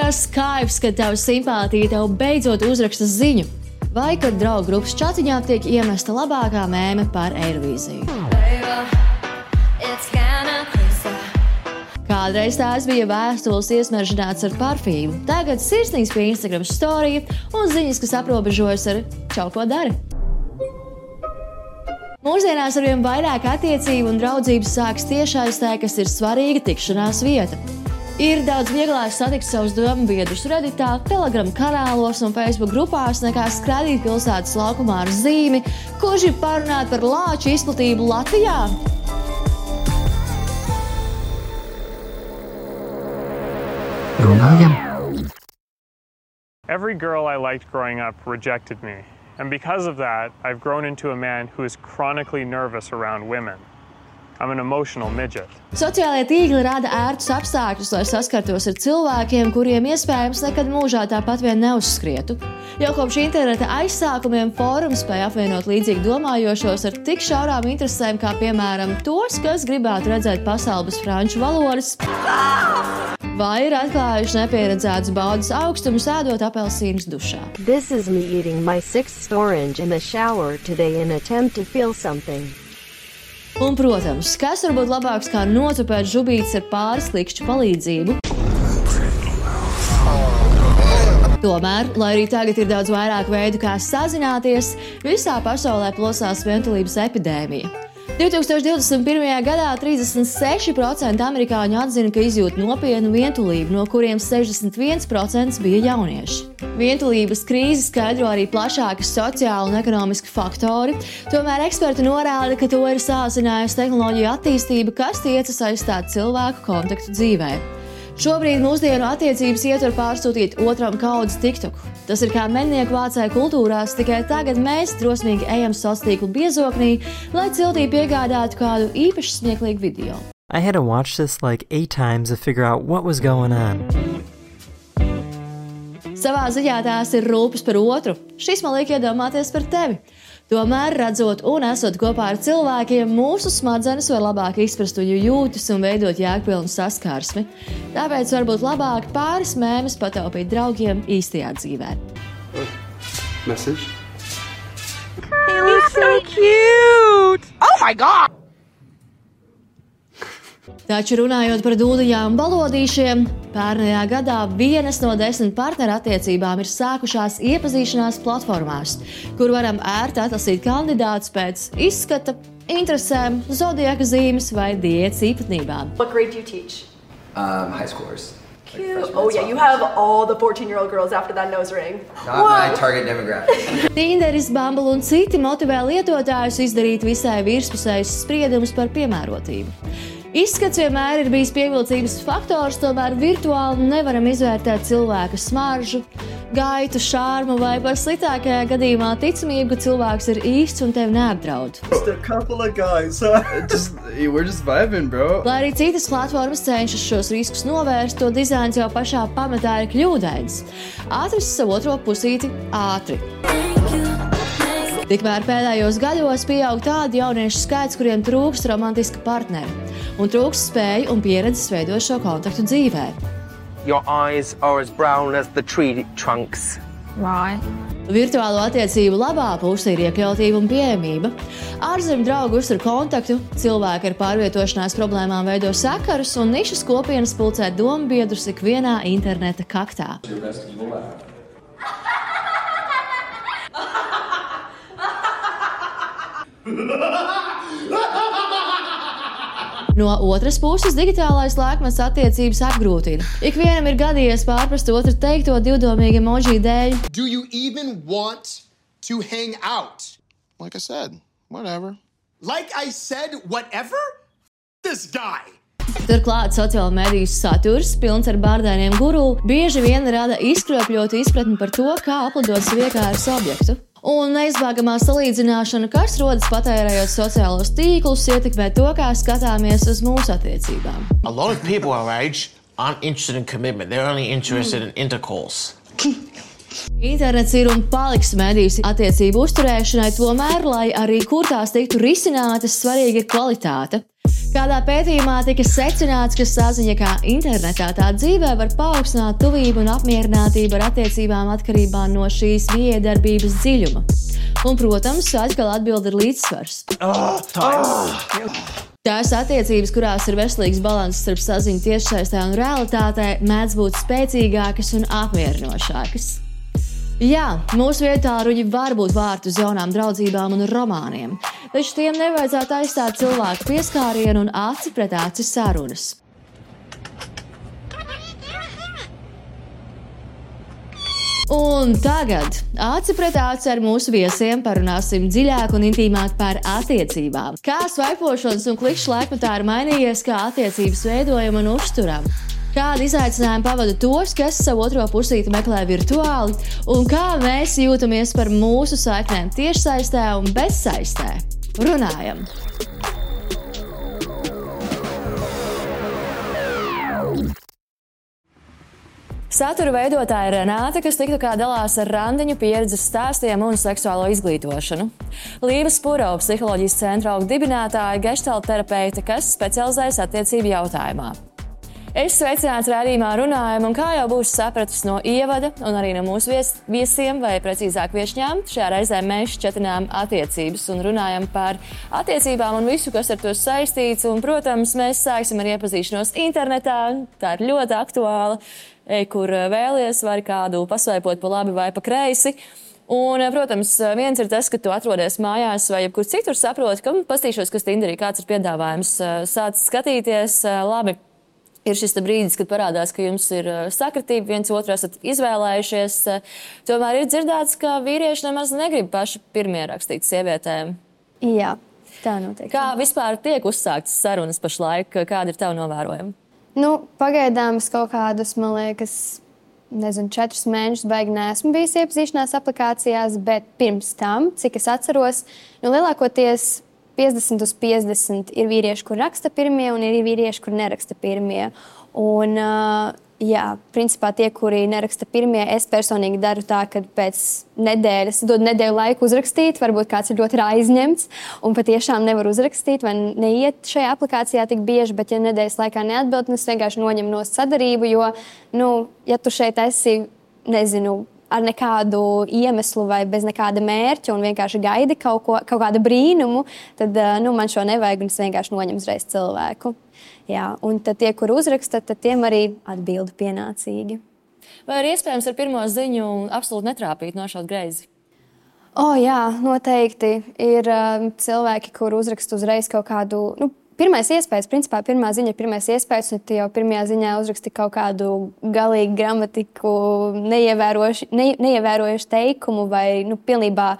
tas kaifs, kad tava simpātija tev beidzot uzraksta ziņu, vai kad draugu grupas čatiņā tiek iemesta labākā mēme par Eirovīziju. Kādreiz tās bija vēstules iesmeržināts ar parfīmu, tagad sirsnīgs pie Instagram storija un ziņas, kas aprobežojas ar čau, ko dari. Mūsdienās arvien vairāk attiecību un draudzības sāks tiešaistē, kas ir svarīga tikšanās vieta. Ir daudz vieglāk satikt savus domu biedrus Redditā, Telegram kanālos un Facebook grupās, nekā skraidīt pilsētas laukumā ar zīmi, kurš ir parunāt par lāču izplatību Latvijā. Every girl I liked growing up rejected me, and because of that, I've grown into a man who is chronically nervous around women. I'm an emotional midget. Sociālie tīkli rada ērtus apstākļus, lai saskartos ar cilvēkiem, kuriem iespējams nekad mūžā tāpat vien neuzskrietu. Jau kopš interneta aizsākumiem fórums spēja apvienot līdzīgi domājošos ar tik šaurām interesēm, kā piemēram tos, kas gribētu redzēt pasauli bez franču valodas, vai ir atklājuši nepieredzētus baudas augstumus ēdot apelsīnus dušā. This is me eating my 6th orange in the shower today in attempt to feel something. Un, protams, kas var būt labāks kā notupēt žubītes ar pāris klikšķu palīdzību? Tomēr, lai arī tagad ir daudz vairāk veidu, kā sazināties, visā pasaulē plosās vientulības epidēmija. 2021. gadā 36% amerikāņu atzina, ka izjūt nopietnu vientulību, no kuriem 61% bija jaunieši. Vientulības krīzi skaidro arī plašāki sociāli un ekonomiski faktori, tomēr eksperti norāda, ka to ir sāsinājusi tehnoloģiju attīstība, kas tiecas aizstāt cilvēku kontaktu dzīvē. Šobrīd mūsdienu attiecības ietver pārsūtīt otram kaudzes TikToku. Tas ir kā mednieku vācēju kultūrās, tikai tagad mēs drosmīgi ejam sociālo tīklu biezoknī, lai ciltī piegādātu kādu īpaši smieklīgu video. I had to watch this like 8 times to figure out what was going on. Savā ziņā tās ir rūpes par otru. Šis man liek iedomāties par tevi. Tomēr, redzot un esot kopā ar cilvēkiem, mūsu smadzenes var labāk izprast viņu jūtas un veidot jēgpilnu saskarsmi. Tāpēc varbūt labāk pāris mēmes pataupīt draugiem īstajā dzīvē. Message. He looks so cute! Oh my God! Taču runājot par dūliņām un balodīšiem, pērnajā gadā 1 no 10 partneru attiecībām ir sākušās iepazīšanās platformās, kur varam ērti atlasīt kandidātus pēc izskata, interesēm, zodiaka zīmes vai diētas īpatnībām. What grade do you teach? High schoolers. Cute. Oh yeah, you have all the 14-year-old girls after that nose ring. Not my target demographic. Tinderis, Bumble un citi motivē lietotājus izdarīt visai virspusējus spriedumus par piemērotību. Izskats vienmēr ir bijis pievilcības faktors, tomēr virtuāli nevaram izvērtēt cilvēka smaržu, gaitu, šārmu vai par sliktākajā gadījumā ticamību, ka cilvēks ir īsts un tevi neapdraud. Just a couple of guys, we're just vibing, bro. Lai arī citas platformas cenšas šos riskus novērst, to dizains jau pašā pamatā ir kļūdains. Atrast savu otro pusīti ātri. Tikmēr pēdējos gados pieaug tādu jauniešu skaits, kuriem trūkst romantiska partneri un trūkst spēju un pieredzes veidot šo kontaktu dzīvē. Your eyes are as brown as the tree trunks. Right. Virtuālo attiecību labā puse ir iekļautība un pieejamība. Ārzemju draugi uztur kontaktu, cilvēki ar pārvietošanās problēmām veido sakarus un nišas kopienas pulcē dombiedrus ikvienā interneta kaktā. No otras puses, digitālais laikmets attiecības apgrūtina. Ikvienam ir gadījies pārprast otru teikto divdomīgi emoji dēļ. Do you even want to hang out? Like I said, whatever. Like I said, whatever? This guy. Turklāt sociālo mediju saturs, pilns ar bārdainiem guru, bieži vien rada izkropļotu izpratni par to, kā aplidot savu iekārtas objektu. Un neizbēgamā salīdzināšana, kas rodas patērējot sociālos tīklus, ietekmē to, kā skatāmies uz mūsu attiecībām. A lot of people our age aren't interested in commitment. They're only interested in intercourse. Internets ir un paliks medijas attiecību uzturēšanai, tomēr, lai arī kur tās tiktu risinātas, svarīga ir kvalitāte. Kādā pētījumā tika secināts, ka saziņa kā internetā tā dzīvē var paaugstināt tuvību un apmierinātību ar attiecībām atkarībā no šīs miedarbības dziļuma. Un, protams, atkal atbild ir līdzsvars. Tās attiecības, kurās ir veselīgs balanss starp saziņu tiešsaistē un realitātē, mēdz būt spēcīgākas un apmierinošākas. Jā, mūsu vietāruņi var būt vārti uz jaunām draudzībām un romāniem, taču tiem nevajadzētu aizstāt cilvēku pieskārienu un aci pret aci sarunas. Un tagad aci pret aci ar mūsu viesiem parunāsim dziļāk un intīmāk par attiecībām. Kā svaipošanas un klikšķu laikmetā ir mainījies, kā attiecības veidojam un uzturam. Kādi izaicinājumi pavada tos, kas savu otro pusīti meklē virtuāli, un kā mēs jūtamies par mūsu saiknēm tiešsaistē un bezsaistē. Runājam! Satura veidotāja Renāte, kas tiktu kā dalās ar randiņu pieredzes stāstiem un seksuālo izglītošanu. Līva Spurova, psiholoģijas centra dibinātāja, geštalta terapeite, kas specializējas attiecību jautājumā. Es sveicināts raidījumā Runājam, un kā jau būs sapratis no ievada un arī no mūsu viesiem, vai precīzāk viešņām, šajā reizē mēs šķetinām attiecības un runājam par attiecībām un visu, kas ar to saistīts. Un, protams, mēs sāksim ar iepazīšanos internetā, tā ir ļoti aktuāla, kur vēlies, var kādu pasvaipot pa labi vai pa kreisi. Un, protams, viens ir tas, ka tu atrodies mājās vai jebkur citur saproti, ka pastīšos, kas Tinderī kāds ir piedāvājums, sāc skatīties, labi. Ir šis brīdis, kad parādās, ka jums ir sakritība, viens otru esat izvēlējušies. Tomēr ir dzirdēts, ka vīrieši nemaz negrib paši pirmie rakstīt sievietēm. Jā, tā notiek. Kā vispār tiek uzsāktas sarunas pašlaik? Kāda ir tava novērojuma? Pagaidām es kaut kādus, man liekas, 4 mēnešus baigi neesmu bijis iepazīšanās aplikācijās, bet pirms tam, cik es atceros, lielākoties 50 uz 50 ir vīrieši, kur raksta pirmie, un ir vīrieši, kur neraksta pirmie. Un, principā tie, kuri neraksta pirmie, es personīgi daru tā, ka pēc nedēļas dodu nedēļu laiku uzrakstīt, varbūt kāds ir ļoti aizņemts un patiešām nevar uzrakstīt vai neiet šajā aplikācijā tik bieži, bet ja nedēļas laikā neatbild, es vienkārši noņemu no sadarību, jo, ja tu šeit esi, ar nekādu iemeslu vai bez nekāda mērķa un vienkārši gaidi kaut kādu brīnumu, tad man šo nevajag un es vienkārši noņemu uzreiz cilvēku. Jā, un tad tie, kur uzraksta, tad tiem arī atbildu pienācīgi. Vai ir iespējams ar pirmo ziņu absolūti netrāpīt, nošaut greizi? Jā, noteikti. Ir cilvēki, kur uzraksta uzreiz kaut kādu... Pirmais iespējas, principā pirmā ziņa ir pirmais iespējas, un tu jau pirmajā ziņā uzraksti kaut kādu galīgu gramatiku, neievērojuši teikumu vai pilnībā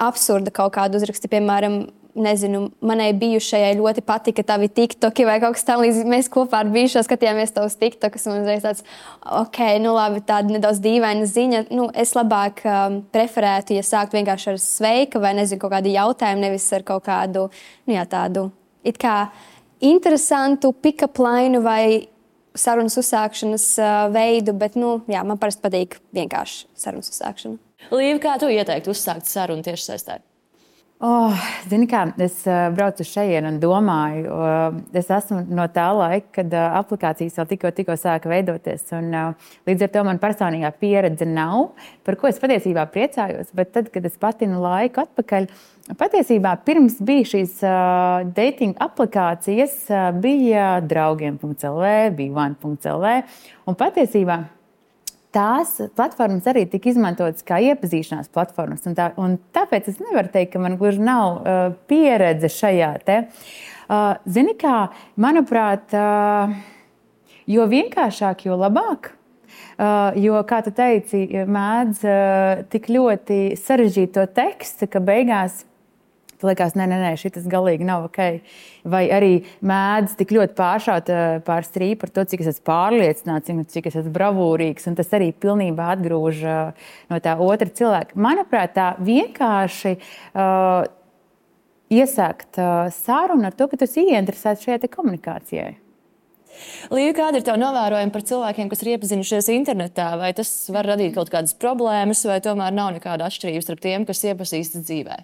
absurda kaut kādu uzraksti. Piemēram, manai bijušajai ļoti patika tavi tiktoki vai kaut kas tam līdz mēs kopā ar bijušo skatījāmies tavus tiktokus un uzreiz tāds, labi, tāda nedaudz dīvaina ziņa. Es labāk preferētu, ja sākt vienkārši ar sveika vai kaut kādu jautājumu, nevis ar kaut kādu, tādu it kā interesantu pick-up line vai sarunas uzsākšanas veidu, bet, man parasti patīk vienkārši sarunas uzsākšana. Līva, kā tu ieteiktu uzsākt sarunu tiešsaistē? Zini kā, es braucu šeit un domāju, es esmu no tā laika, kad aplikācijas vēl tikko sāka veidoties. Un, līdz ar to man personīgā pieredze nav, par ko es patiesībā priecājos. Bet tad, kad es patinu laiku atpakaļ, patiesībā pirms bija šīs dating aplikācijas, bija draugiem.lv, bija one.lv. Un patiesībā tās platformas arī tika izmantotas kā iepazīšanās platformas. Un tāpēc es nevaru teikt, ka man gluži nav pieredze šajā te. Zini kā, manuprāt, jo vienkāršāk, jo labāk. Jo, kā tu teici, mēdz tik ļoti sarežģīt to tekstu, ka beigās tu liekas, nē, šitas galīgi nav ok. Vai arī mēdz tik ļoti pāršaut pār strīpu par to, cik es esmu pārliecināts, cik es esmu bravūrīgs, un tas arī pilnībā atgrūž no tā otra cilvēka. Manuprāt, tā vienkārši iesākt sarunu ar to, ka tu esi ieinteresēts šajā te komunikācijai. Līva, kāda ir tava novērojuma par cilvēkiem, kas ir iepazinušies internetā? Vai tas var radīt kaut kādas problēmas, vai tomēr nav nekāda atšķirības starp tiem, kas iepazīstas dzīvē?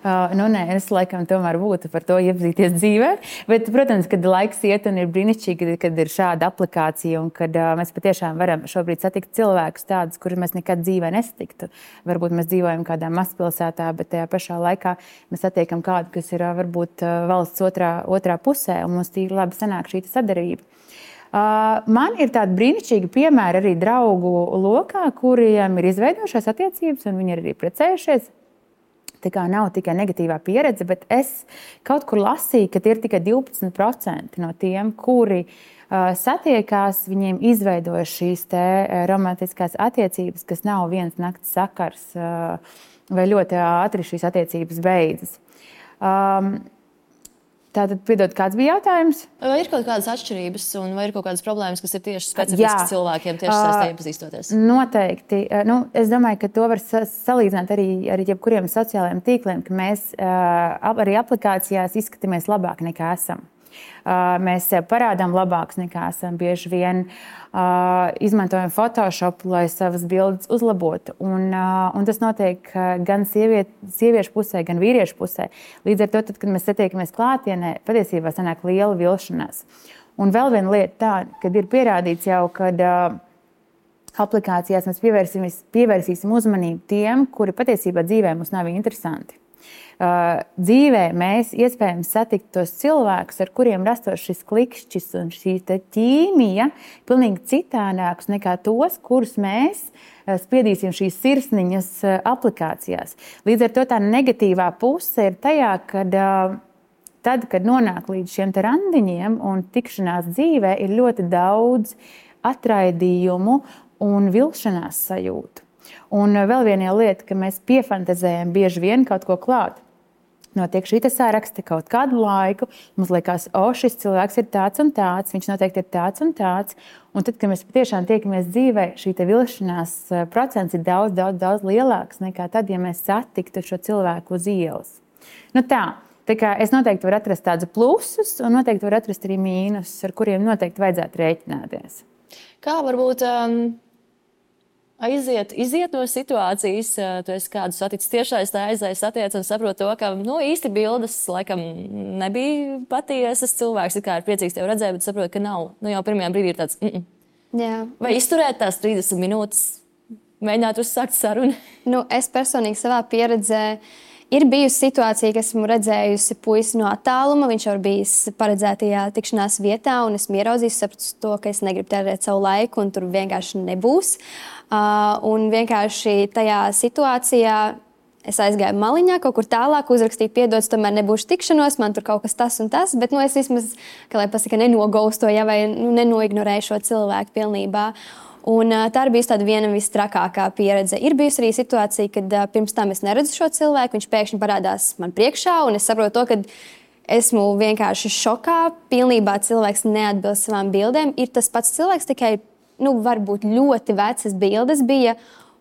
Es laikam tomēr būtu par to iepazīties dzīvē. Bet, protams, kad laiks iet un ir brīnišķīgi, kad ir šāda aplikācija un kad mēs patiešām varam šobrīd satikt cilvēkus tādus, kurus mēs nekad dzīvē nesatiktu. Varbūt mēs dzīvojam kādā mazpilsētā, bet tajā pašā laikā mēs satiekam kādu, kas ir varbūt valsts otrā pusē, un mums tīri labi sanāk šī sadarbība. Man ir tādi brīnišķīgi piemēri arī draugu lokā, kuriem ir izveidojušās attiecības, un viņi ir arī precējušies. Tā kā nav tikai negatīvā pieredze, bet es kaut kur lasīju, ka ir tikai 12% no tiem, kuri satiekās, viņiem izveidoja šīs romantiskās attiecības, kas nav viens nakts sakars vai ļoti ātri šīs attiecības beidzas. Tātad, piedod, kāds bija jautājums? Vai ir kaut kādas atšķirības un vai ir kaut kādas problēmas, kas ir tieši specifiskas cilvēkiem tieši saistē iepazīstoties? Noteikti. Es domāju, ka to var salīdzināt arī ar jebkuriem sociālajiem tīkliem, ka mēs arī aplikācijās izskatāmies labāk nekā esam. Mēs parādām labākus nekā esam. Bieži vien izmantojam Photoshop, lai savas bildes uzlabotu. Un tas notiek gan sieviešu pusē, gan vīriešu pusē. Līdz ar to, tad, kad mēs satiekamies klātienē, patiesībā sanāk liela vilšanās. Un vēl viena lieta tā, kad ir pierādīts jau, kad aplikācijās mēs pievērsīsim uzmanību tiem, kuri patiesībā dzīvē mums nav interesanti. Dzīvē mēs iespējams satikt tos cilvēkus, ar kuriem rastos šis klikšķis un šī ķīmija pilnīgi citādākus nekā tos, kurus mēs spiedīsim šīs sirsniņas aplikācijās. Līdz ar to tā negatīvā puse ir tajā, kad nonāk līdz šiem randiņiem un tikšanās dzīvē, ir ļoti daudz atraidījumu un vilšanās sajūtu. Un vēl viena lieta, ka mēs piefantazējam bieži vien kaut ko klāt. Notiek šī saraksta kaut kādu laiku, mums liekas, šis cilvēks ir tāds un tāds, viņš noteikti ir tāds un tāds. Un tad, kad mēs patiešām tiekamies dzīvē, šī vilšanās procents ir daudz, daudz, daudz lielāks nekā tad, ja mēs satiktu šo cilvēku uz ielas. Tā kā es noteikti varu atrast tādus plusus un noteikti varu atrast arī mīnusus, ar kuriem noteikti vajadzētu rēķināties. Kā varbūt iziet no situācijas, tu esi kādu saticis tiešais, tā satiec un saprot to, ka īsti bildes laikam nebija patiesas. Cilvēks ir priecīgs tevi redzēt, bet saprot, ka nav. Jau pirmajā brīdī ir tāds. Jā. Vai izturēt tās 30 minūtes, mēģināt uzsākt sarunu? Es personīgi savā pieredzē ir bijusi situācija, ka esmu redzējusi puisi no attāluma. Viņš jau ir bijis paredzētajā tikšanās vietā, un esmu ieraudzījusi, sapratu to, ka es negribu tērēt savu laiku, un tur vienkārši nebūs. Un vienkārši tajā situācijā es aizgāju maliņā, kaut kur tālāk, uzrakstīju, piedodas, tomēr nebūšu tikšanos, man tur kaut kas tas un tas, bet es vismaz, kā lai pasaka, nenogaustoju vai nenoignorēju šo cilvēku pilnībā. Un tā ir bijusi tāda viena visstrakākā pieredze. Ir bijusi arī situācija, kad pirms tam es neredzu šo cilvēku, viņš pēkšņi parādās man priekšā, un es saprotu to, ka esmu vienkārši šokā, pilnībā cilvēks neatbilst savām bildēm. Ir tas pats cilvēks, tikai varbūt ļoti vecas bildes bija.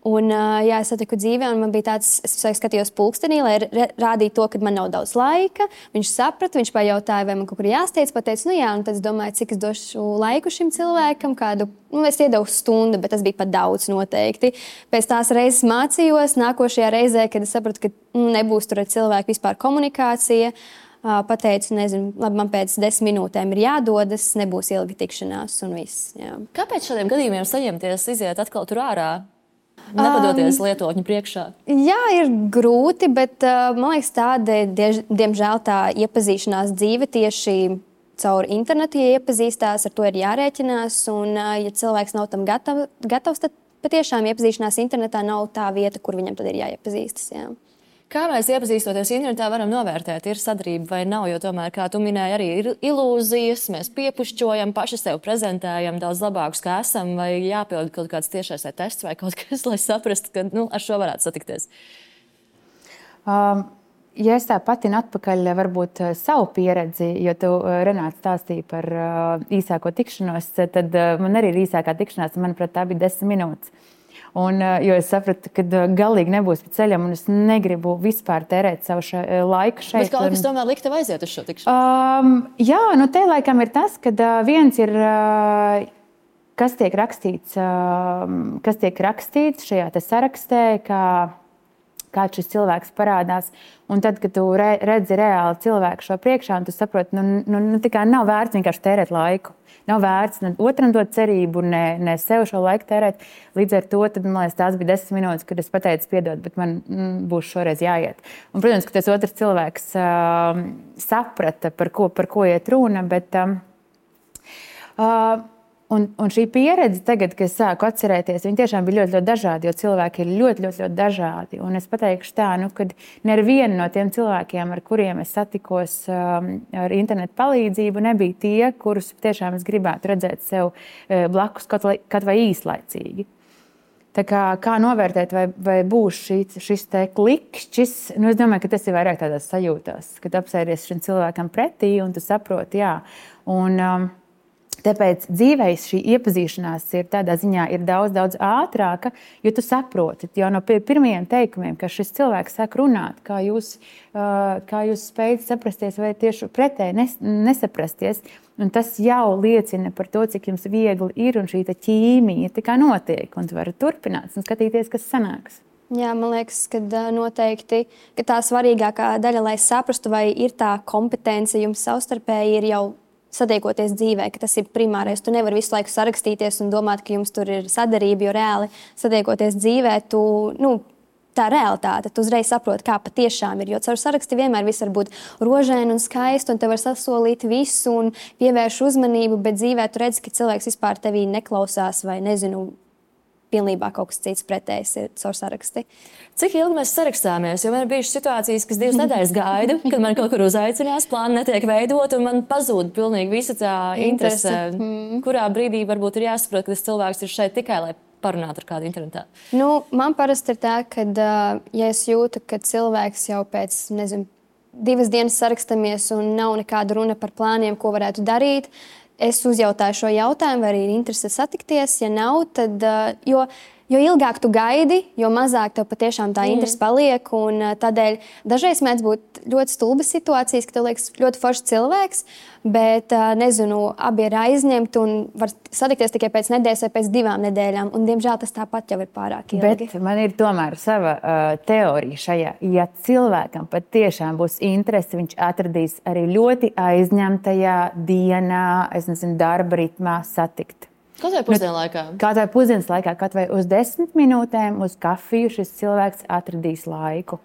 Un, es satiku dzīvē, un man bija tāds, es skatījos pulkstenī, lai rādītu to, ka man nav daudz laika. Viņš saprata, viņš pajautāja, vai man kaut kur jāsteidz, pateica, un tad es domāju, cik es došu laiku šim cilvēkam, kādu, es iedevu stundu, bet tas bija pat daudz noteikti. Pēc tās reizes mācījos, nākošajā reizē, kad es sapratu, ka nebūs tur ar cilvēku vispār komunikācija, pateicu, labi, man pēc 10 minūtēm ir jādodas, nebūs ilga tikšanās un viss. Jā. Kāpēc šādiem gadījumiem saņemties, iziet atkal tur ārā? Nepadoties lietotņu priekšā? Jā, ir grūti, bet man liekas, tāda, diemžēl, tā iepazīšanās dzīve tieši caur internetu, ja iepazīstās, ar to ir jārēķinās. Un, ja cilvēks nav tam gatavs, tad patiešām iepazīšanās internetā nav tā vieta, kur viņam tad ir jāiepazīstas. Jā. Kā mēs iepazīstoties internetā varam novērtēt, ir sadarbība vai nav, jo tomēr, kā tu minēji, arī ir ilūzijas, mēs piepušķojam, paši sev prezentējam daudz labākus, kā esam, vai jāpild kaut kāds tiešais tests vai kaut kas, lai saprastu, ka ar šo varētu satikties? Ja es tā patinu atpakaļ varbūt savu pieredzi, jo tu, Renāte, stāstīji par īsāko tikšanos, tad man arī ir īsākā tikšanās, manuprāt, tā bija 10 minūtes. Jo es sapratu, ka galīgi nebūs pa ceļam, un es negribu vispār tērēt savu laiku šeit. Bet kaut kas tomēr likt tev aiziet uz šo tikšanos? Jā, te laikam ir tas, ka viens ir, kas tiek rakstīts šajā te sarakstē, kā kāds šis cilvēks parādās. Un tad, kad tu redzi reāli cilvēku šo priekšā, un tu saproti, tā kā nav vērts vienkārši tērēt laiku. Nav vērts ne otram dot cerību, ne sev šo laiku tērēt. Līdz ar to, tad, man liekas, tās bija 10 minūtes, kad es pateicu, piedod, bet man būs šoreiz jāiet. Un, protams, ka tas otrs cilvēks saprata, par ko iet runa, bet un šī pieredze tagad, kad es sāku atcerēties, viņi tiešām bija ļoti, ļoti dažādi, jo cilvēki ir ļoti, ļoti, ļoti dažādi. Un es pateikšu tā, kad neviena no tiem cilvēkiem, ar kuriem es satikos ar internetu palīdzību, nebija tie, kurus tiešām es gribētu redzēt sev blakus kaut vai īslaicīgi. Tā kā novērtēt, vai būs šis te klikšķis, es domāju, ka tas ir vairāk tādās sajūtās, kad apsēries šim cilvēkam pretī un tu saproti, jā. Un tāpēc dzīvēs šī iepazīšanās ir tādā ziņā ir daudz, daudz ātrāka, jo tu saproti jau no pirmajiem teikumiem, ka šis cilvēks sāk runāt, kā jūs spējat saprasties vai tieši pretēji nesaprasties. Un tas jau liecina par to, cik jums viegli ir un šī ķīmija tā kā notiek. Un tu vari turpināt un skatīties, kas sanāks. Jā, man liekas, ka noteikti ka tā svarīgākā daļa, lai saprastu, vai ir tā kompetence jums savstarpēji, ir jau satiekoties dzīvē, ka tas ir primārais. Tu nevari visu laiku sarakstīties un domāt, ka jums tur ir sadarība, jo reāli satiekoties dzīvē, tā realitāte, tu uzreiz saproti, kā patiešām ir. Jo caur saraksti vienmēr viss var būt rožaini un skaisti, un te var sasolīt visu un pievērš uzmanību, bet dzīvē tu redzi, ka cilvēks vispār tevī neklausās vai pilnībā kaut kas cits pretējs ir caur saraksti. Cik ilgi mēs sarakstāmies? Jo man ir bijušas situācijas, kas 2 nedēļas gaidu, kad man kaut kur uzaicinās, plāni netiek veidot, un man pazūd pilnīgi visa tā interese. Kurā brīdī varbūt ir jāsaprot, ka tas cilvēks ir šeit tikai, lai parunātu ar kādu internetā? Man parasti ir tā, ka, ja es jūtu, ka cilvēks jau pēc, 2 dienas sarakstamies un nav nekāda runa par plāniem, ko varētu darīt, es uzjautāju šo jautājumu, vai arī ir interese satikties. Ja nav, tad, jo ilgāk tu gaidi, jo mazāk tev patiešām tā interese paliek. Un tādēļ dažreiz mēdz būt ļoti stulbas situācijas, ka tev liekas ļoti foršs cilvēks, bet, abi ir aizņemti un var satikties tikai pēc nedēļas vai pēc 2 nedēļām. Un, diemžēl, tas tāpat jau ir pārāk ilgi. Bet man ir tomēr sava teorija šajā. Ja cilvēkam patiešām būs interese, viņš atradīs arī ļoti aizņemtajā dienā, darba ritmā satikt. Kaut vai pusdienu laikā? Kaut vai pusdienas laikā, kaut vai uz 10 minūtēm uz kafiju šis cilvēks atradīs laiku.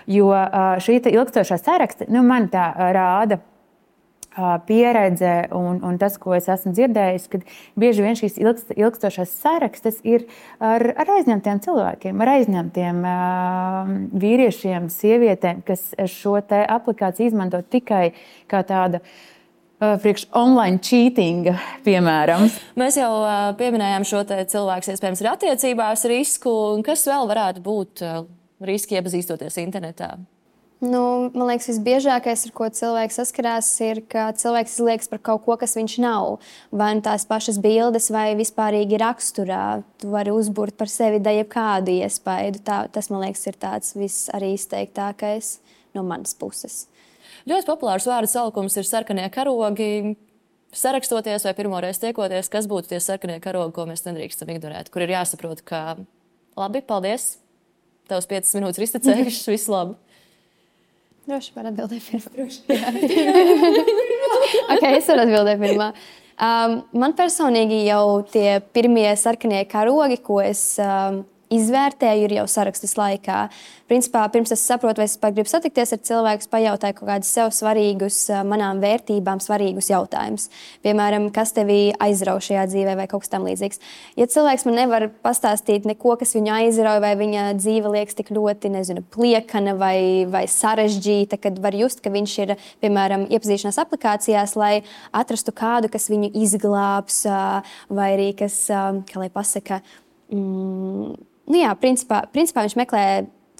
Jo šī ilgstošā saraksta, man tā rāda pieredze un tas, ko es esmu dzirdējis, kad bieži vien šīs ilgstošās sarakstas ir ar aizņemtiem cilvēkiem, ar aizņemtiem vīriešiem, sievietēm, kas šo te aplikāciju izmanto tikai kā tāda priekš online cheatinga, piemēram. Mēs jau pieminējām šo te cilvēks, iespējams, ir attiecībās risku. Kas vēl varētu būt riski iepazīstoties internetā? Man liekas, visbiežākais, ar ko cilvēks saskarās, ir, ka cilvēks izliekas par kaut ko, kas viņš nav. Vai tās pašas bildes, vai vispārīgi raksturā. Tu vari uzburt par sevi jebkādu iespaidu. Tas, man liekas, ir tāds viss arī izteiktākais no manas puses. Ļoti populārs vārdu salikums ir sarkanie karogi. Sarakstoties vai pirmoreiz tiekoties, kas būtu tie sarkanie karogi, ko mēs nedrīkstam ignorēt, kur ir jāsaprot, ka labi, paldies, tavs 5 minūtes ir iztecējušas, viss labi. Droši var atbildēt pirmā. Es varu atbildēt pirmā. Man personīgi jau tie pirmie sarkanie karogi, ko es izvērtēju, ir jau sarakstas laikā. Principā, pirms es saprotu, vai es gribu satikties ar cilvēku, pajautāju kaut kādus sev svarīgus, manām vērtībām svarīgus jautājumus. Piemēram, kas tevi aizrauj šajā dzīvē vai kaut kas tam līdzīgs. Ja cilvēks man nevar pastāstīt neko, kas viņu aizrauj, vai viņa dzīve liekas tik ļoti, pliekana vai sarežģīta, kad var just, ka viņš ir, piemēram, iepazīšanās aplikācijās, lai atrastu kādu, kas viņu izglābs, vai arī kas, kā lai pasaka, principā viņš meklē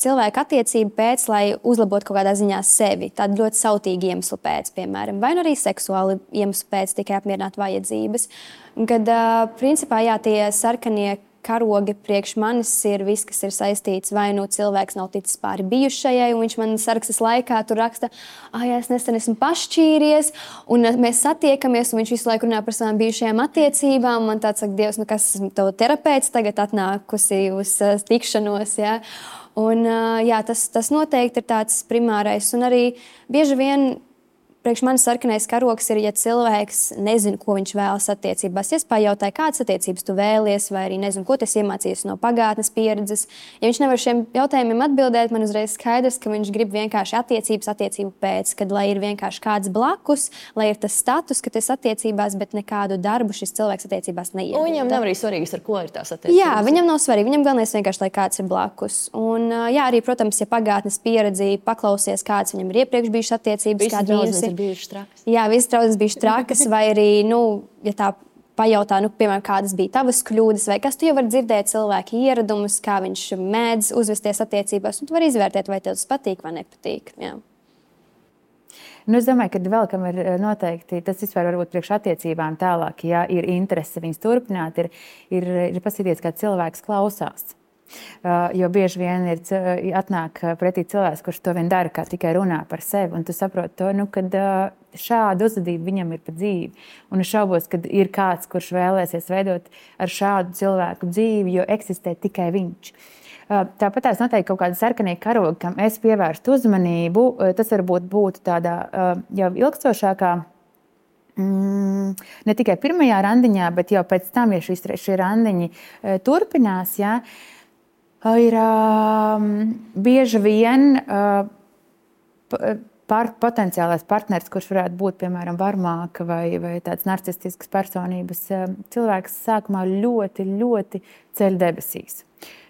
cilvēku attiecību pēc, lai uzlabotu kaut kādā ziņā sevi. Tādu ļoti sautīgu iemeslu pēc, piemēram, vai arī seksuāli iemeslu pēc, tikai apmierināt vajadzības. Kad, principā, tie sarkanie karogi priekš manis ir viss, kas ir saistīts, vai cilvēks nav ticis pāri bijušajai, un viņš man sarakstas laikā tur raksta, es nesen esmu pašķīries, un mēs satiekamies, un viņš visu laiku runā par savām bijušajām attiecībām. Man tāds saka, Dievs, kas esmu tev terapeits tagad atnākusi uz tikšanos, ja? Un, jā, tas noteikti ir tāds primārais. Un arī bieži vien priekš manis sarkanais karoks ir, ja cilvēks nezina, ko viņš vēlas attiecībās. Ja es pajautāju, kādas attiecības tu vēlies, vai arī nezinu, ko tu esi iemācījies no pagātnes pieredzes. Ja viņš nevar šiem jautājumiem atbildēt, man uzreiz skaidrs, ka viņš grib vienkārši attiecību pēc, kad lai ir vienkārši kāds blakus, lai ir tas status, ka tu esi attiecībās, bet nekādu darbu šis cilvēks attiecībās neiegūda. Un viņam nav arī svarīgs, ar ko ir tās attiecības. Jā, viņam nav svarīgi. Viņam galvenais vienkārši, lai kāds ir blakus. Un, jā, arī, protams, ja pagātnes pieredzi paklausies, kāds viņam ir iepriekš bijušas attiecības, kādi mīnusi. Bijušas trakas. Jā, visas draudzes bijušas trakas, vai arī, ja tā pajautā, piemēram, kādas bija tavas kļūdas, vai kas tu jau vari dzirdēt cilvēku ieradumus, kā viņš mēdz uzvesties attiecībās, un tu vari izvērtēt, vai tev tas patīk vai nepatīk. Jā. Es domāju, ka vēl kam ir noteikti, tas vispār varbūt priekš attiecībām tālāk, ja ir interese viņas turpināt, ir paskatīties, kā cilvēks klausās. Jo bieži vien atnāk pretī cilvēks, kurš to vien dara, kā tikai runā par sevi. Un tu saproti to, kad šādu uzvedību viņam ir pa dzīvi. Un es šaubos, ka ir kāds, kurš vēlēsies veidot ar šādu cilvēku dzīvi, jo eksistē tikai viņš. Tāpat tās noteikti kaut kāda sarkanie karogi, kam es pievērstu uzmanību. Tas varbūt būtu tādā jau ilgstošākā, ne tikai pirmajā randiņā, bet jau pēc tam, ja šie randiņi turpinās, jā, ir bieži vien potenciālais partners, kurš varētu būt, piemēram, varmāka vai tāds narcistisks personības cilvēks sākumā ļoti, ļoti ceļ debesīs.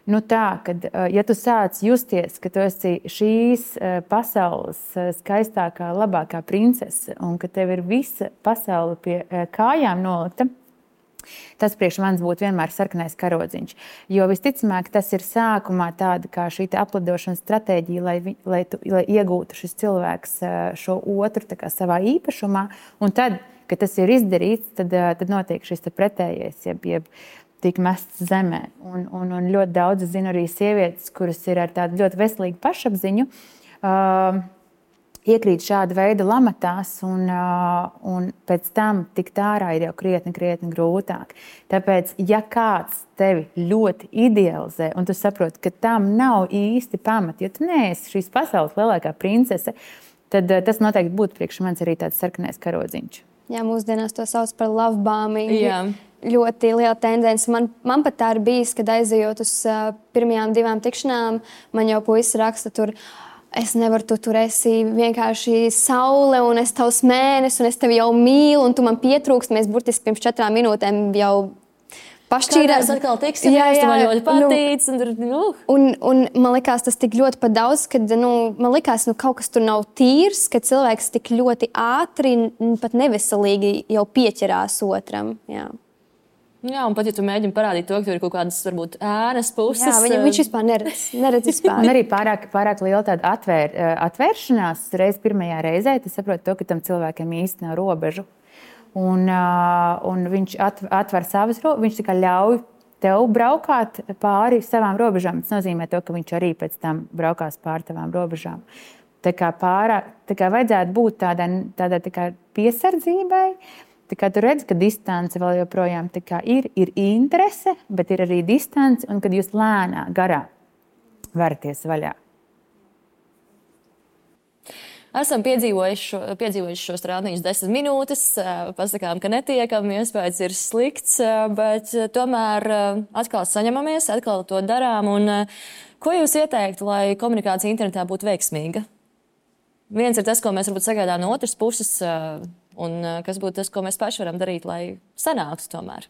Tā, kad, ja tu sāc justies, ka tu esi šīs pasaules skaistākā, labākā princese un ka tev ir visa pasaule pie kājām nolikta, tas priekš manis būtu vienmēr sarkanais karodziņš. Jo visticamāk, tas ir sākumā tāda kā šī aplidošanas stratēģija, lai iegūtu šis cilvēks šo otru tā kā savā īpašumā. Un tad, kad tas ir izdarīts, tad notiek šis pretējais, jeb tiek mests zemē. Un ļoti daudz zinu arī sievietes, kuras ir ar tādu ļoti veselīgu pašapziņu, iekrīt šāda veida lamatās, un pēc tam tikt ārā ir jau krietni grūtāk. Tāpēc, ja kāds tevi ļoti idealizē, un tu saproti, ka tam nav īsti pamati, jo tu neesi šīs pasaules lielākā princese, tad tas noteikti būtu priekš manis arī tāds sarkanais karodziņš. Jā, mūsdienās to sauc par love bombing. Jā. Ļoti liela tendence. Man pat tā ir bijis, kad aizejot uz pirmajām 2 tikšanām, man jau puisis raksta tur, es nevaru, tu tur esi vienkārši saule, un es tavs mēnesis, un es tevi jau mīlu, un tu man pietrūkst. Mēs burtiski pirms 4 minūtēm jau pašķīrās. Kādās atkal tiksimies, tu man ļoti patīc. Un man likās tas tik ļoti pat daudz, kad man likās, kaut kas tur nav tīrs, ka cilvēks tik ļoti ātri, pat neveselīgi jau pieķerās otram. Jā, un pat, ja tu mēģini parādīt to, ka tur ir kaut kādas, varbūt, ēnas puses. Jā, viņš vispār neredz vispār. Un arī pārāk liela tāda atvēršanās reiz pirmajā reizē, tu saproti to, ka tam cilvēkam īsti nav robežu. Un viņš atver savas robežas, viņš tikai ļauj tev braukāt pāri savām robežām. Tas nozīmē to, ka viņš arī pēc tam braukās pāri tavām robežām. Tā kā vajadzētu būt tādai piesardzībai. Tā kā tu redzi, ka distance vēl joprojām ir interese, bet ir arī distance, un kad jūs lēnā garā varaties vaļā. Esam piedzīvojuši šos rādiņus 10 minūtes, pasakām, ka netiekam, iespējas ir slikts, bet tomēr atkal saņemamies, atkal to darām. Un ko jūs ieteiktu, lai komunikācija internetā būtu veiksmīga? Viens ir tas, ko mēs varbūt sagaidām no otras puses, un kas būtu tas, ko mēs paši varam darīt, lai sanāktu tomēr?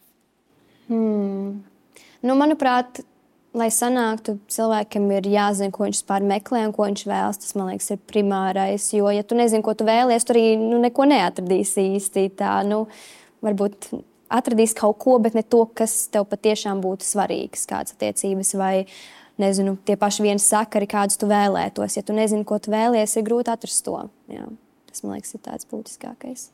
Manuprāt, lai sanāktu, cilvēkam ir jāzina, ko viņš vispār meklē un ko viņš vēlas. Tas, man liekas, ir primārais. Jo, ja tu nezini, ko tu vēlies, tu arī neko neatradīsi īsti. Varbūt atradīsi kaut ko, bet ne to, kas tev patiešām būtu svarīgs, kādas attiecības vai, nezinu, tie paši viens sakari, kādus tu vēlētos. Ja tu nezini, ko tu vēlies, ir grūti atrast to. Jā. Tas, man liekas, ir tāds būtiskākais.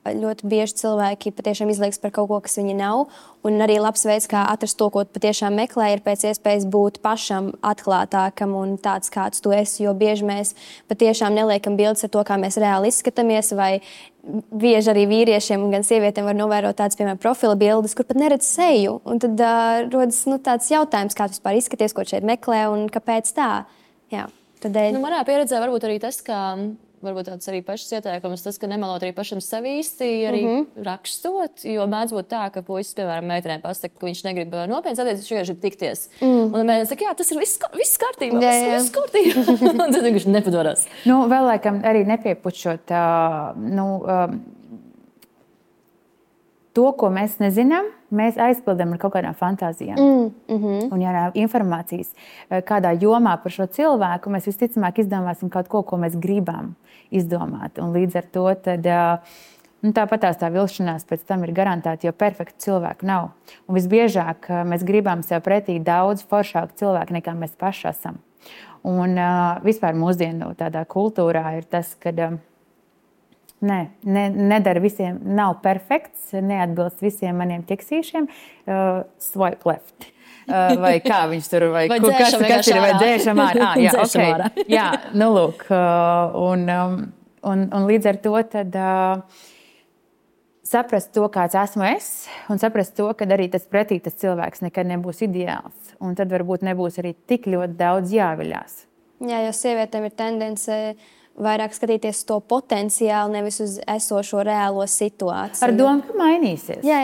ļoti bieži cilvēki patiešām izliekas par kaut ko, kas viņi nav. Un arī labs veids, kā atrast to, ko patiešām meklē, ir pēc iespējas būt pašam atklātākam un tāds, kāds tu esi. Jo bieži mēs patiešām neliekam bildes ar to, kā mēs reāli izskatāmies. Vai bieži arī vīriešiem un gan sievietēm var novērot tādas, piemēram, profila bildes, kur pat neredz seju. Un tad rodas tāds jautājums, kā tu vispār izskaties, ko šeit meklē un kāpēc tā. Jā, tādēļ. Manā pieredzē varbūt arī tas, ka varbūt tāds arī pašas ieteikums, tas, ka nemelot arī pašam sevi īsti arī rakstot, jo mēdz būt tā, ka puisis, piemēram, meitenēm pasaka, ka viņš negrib nopietnas attiecības, viņš vienkārši grib tikties. Un mēģina saka, jā, tas ir viss kārtībā, viss kārtībā. Un tad viņš nepadodas. Vēl laikam arī nepiepušot to, ko mēs nezinām, mēs aizpildām ar kaut kādām fantāzijām. Un, ja nav informācijas kādā jomā par šo cilvēku, mēs visticamāk izdomāsim kaut ko, ko mēs gribam izdomāt. Un līdz ar to tad, tāpatās tā vilšanās pēc tam ir garantēta, jo perfektu cilvēku nav. Un visbiežāk mēs gribam sev pretī daudz foršāku cilvēku, nekā mēs paši esam. Un vispār mūsdienu tādā kultūrā ir tas, ka nedara visiem, nav perfekts, neatbilst visiem maniem ķeksīšiem, swipe left. Vai kā viņš tur, vai kas ir, vai dzēšam ārā. Jā, okay. Jā, lūk. Un līdz ar to tad saprast to, kāds esmu es, un saprast to, ka arī tas pretī tas cilvēks nekad nebūs ideāls. Un tad varbūt nebūs arī tik ļoti daudz jāviļās. Jā, jo sievietēm ir tendence vairāk skatīties to potenciāli, nevis uz esošo reālo situāciju. Ar domu, ka mainīsies. Jā.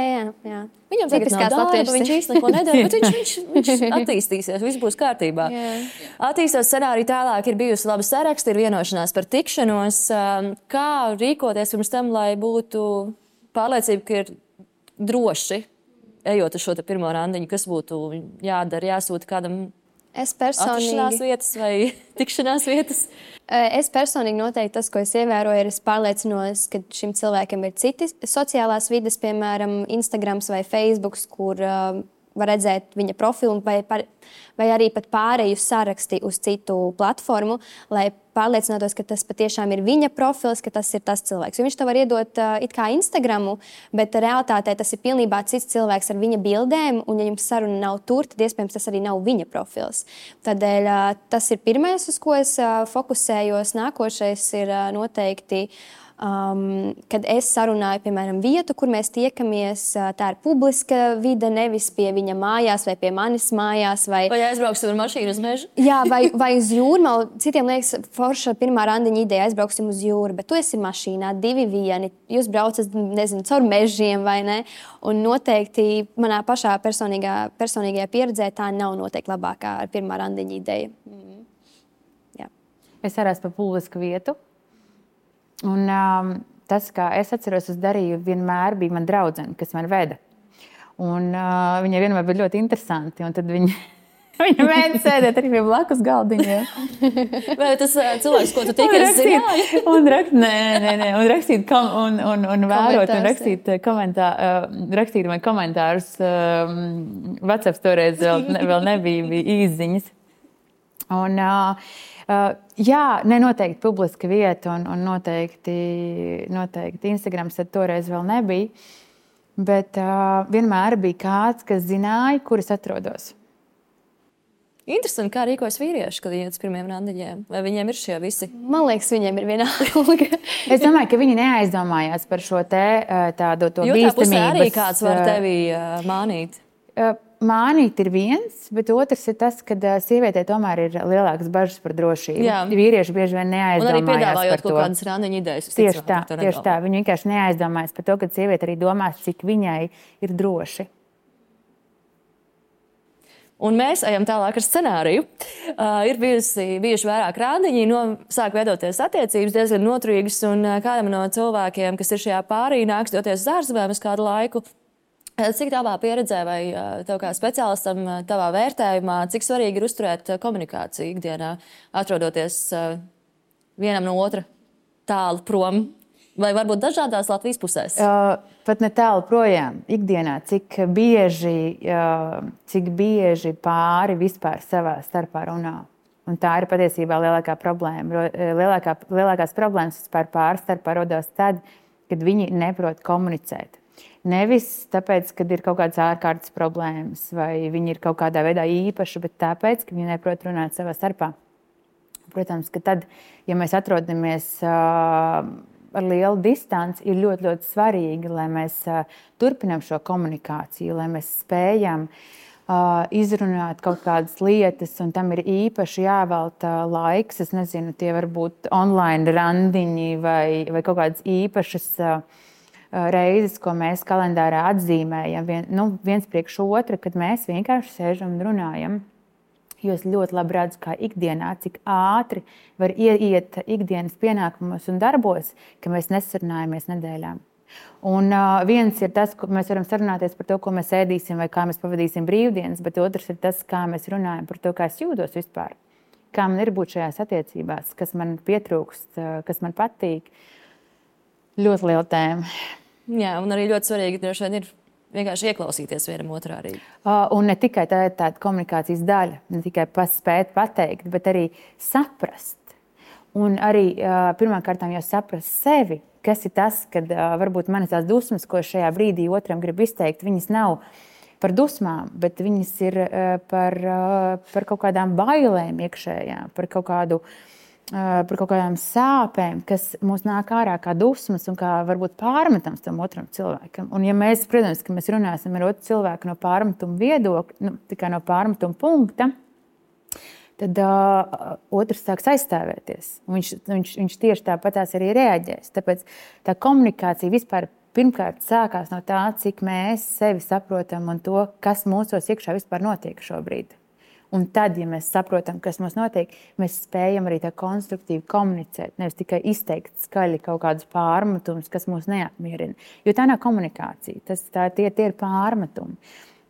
Viņam tagad nav darba, viņš īsti neko nedara, bet viņš attīstīsies, viss būs kārtībā. Attīstot scenāriju tālāk, ir bijusi laba saraksta, ir vienošanās par tikšanos. Kā rīkoties pirms tam, lai būtu pārliecība, ka ir droši, ejot uz šo pirmo randiņu, kas būtu jādara, jāsūta kādam atrašanās vietas vai tikšanās vietas? Es personīgi noteikti tas, ko es ievēroju, ir es pārliecinos, ka šim cilvēkam ir citi sociālās vides, piemēram, Instagrams vai Facebooks, kur var redzēt viņa profilu vai arī pat pārēju saraksti uz citu platformu, lai pārliecinātos, ka tas patiešām ir viņa profils, ka tas ir tas cilvēks. Jo viņš tev var iedot it kā Instagramu, bet realitātē tas ir pilnībā cits cilvēks ar viņa bildēm, un ja jums saruna nav tur, tad iespējams tas arī nav viņa profils. Tādēļ tas ir pirmais, uz ko es fokusējos. Nākošais ir noteikti kad es sarunāju, piemēram, vietu, kur mēs tiekamies, tā ir publiska vide, nevis pie viņa mājās vai pie manis mājās. Vai aizbrauksim ar mašīnu uz mežu? Jā, vai uz jūru. Citiem liekas, forša pirmā randiņa ideja, aizbrauksim uz jūru, bet tu esi mašīnā, 2 vieni, jūs braucat, nezinu, caur mežiem vai ne. Un noteikti manā pašā personīgajā pieredzē tā nav noteikti labākā ar pirmā randiņa ideja. Jā. Es arī esmu pa publisku vietu. Un tas, kā es atceros, es darīju, vienmēr bija man draudzene, kas man veda. Un viņai vienmēr bija ļoti interesanti. Un tad viņa mēģināja sēdēt arī pie blakus galdiņiem. Vai tas cilvēks, ko tu tikai zināji? Un rakstīt un vērot, un rakstīt man komentārus. WhatsApp toreiz vēl nebija īsziņas. Un jā, noteikti publiska vieta un noteikti Instagrams tad toreiz vēl nebija, bet vienmēr bija kāds, kas zināja, kur es atrodos. Interesanti, kā rīkojas vīrieši, kad iet uz pirmiem randiņiem. Vai viņiem ir šie visi? Man liekas, viņiem ir vienalga. Es domāju, ka viņi neaizdomājās par šo tādu to bīstamības. Jo tā pusē arī kāds var tevi mānīt. Mānīt ir viens, bet otrs ir tas, ka sievietē tomēr ir lielākas bažas par drošību. Jā. Vīrieši bieži vien neaizdomājās par to. Un arī piedāvājot kaut kādas randiņu idejas. Tieši tā. Viņi vienkārši neaizdomājas par to, ka sieviete arī domās, cik viņai ir droši. Un mēs ejam tālāk ar scenāriju. Ir bijuši vairāk randiņi, sāk veidoties attiecības diezgan noturīgas, un kādam no cilvēkiem, kas ir šajā pārī, nāks doties uz ārzemēm uz kādu laiku. Cik tavā pieredzē vai tev kā speciālistam tavā vērtējumā, cik svarīgi ir uzturēt komunikāciju ikdienā, atrodoties vienam no otra tālu prom, vai varbūt dažādās Latvijas pusēs? Pat ne tālu projām. Ikdienā, cik bieži pāri vispār savā starpā runā. Un tā ir patiesībā lielākā problēma. Lielākās problēmas vispār pāri starpā rodās tad, kad viņi neprot komunicēt. Nevis tāpēc, kad ir kaut kādas ārkārtas problēmas vai viņi ir kaut kādā veidā īpaši, bet tāpēc, ka viņi neprot runāt savā starpā. Protams, ka tad, ja mēs atrodamies ar lielu distanci, ir ļoti, ļoti svarīgi, lai mēs turpinām šo komunikāciju, lai mēs spējam izrunāt kaut kādas lietas, un tam ir īpaši jāvelta laiks. Es nezinu, tie var būt online randiņi vai kaut kādas īpašas reizes, ko mēs kalendārā atzīmējam viens priekš otra, kad mēs vienkārši sēžam un runājam. Jo es ļoti labi redzu, kā ikdienā, cik ātri var ieiet ikdienas pienākumos un darbos, ka mēs nesarunājamies nedēļām. Un viens ir tas, ka mēs varam sarunāties par to, ko mēs ēdīsim vai kā mēs pavadīsim brīvdienas, bet otrs ir tas, kā mēs runājam par to, kā es jūtos vispār. Kā man ir būt šajās attiecībās, kas man pietrūkst, kas man patīk. Ļoti liela tēma. Jā, un arī ļoti svarīgi droši vien ir vienkārši ieklausīties vienam otrā arī. Un ne tikai tāda komunikācijas daļa, ne tikai spēt pateikt, bet arī saprast. Un arī pirmkārt jau saprast sevi, kas ir tas, kad varbūt manas tās dusmas, ko šajā brīdī otram grib izteikt, viņas nav par dusmām, bet viņas ir par kaut kādām bailēm iekšējām, par kaut kādām sāpēm, kas mums nāk ārā kā dusmas un kā varbūt pārmetams tam otram cilvēkam. Un ja mēs, protams, ka mēs runāsim ar otru cilvēku no pārmetuma viedokļa, tikai no pārmetuma punkta, tad otrs sāks aizstāvēties. Viņš tieši tāpatās arī reaģēs. Tāpēc tā komunikācija vispār pirmkārt sākās no tā, cik mēs sevi saprotam un to, kas mūsos iekšā vispār notiek šobrīd. Un tad, ja mēs saprotam, kas mums notiek, mēs spējam arī tā konstruktīvi komunicēt, nevis tikai izteikt skaļi kaut kādus pārmetumus, kas mūs neapmierina. Jo tā nav komunikācija, tie ir pārmetumi.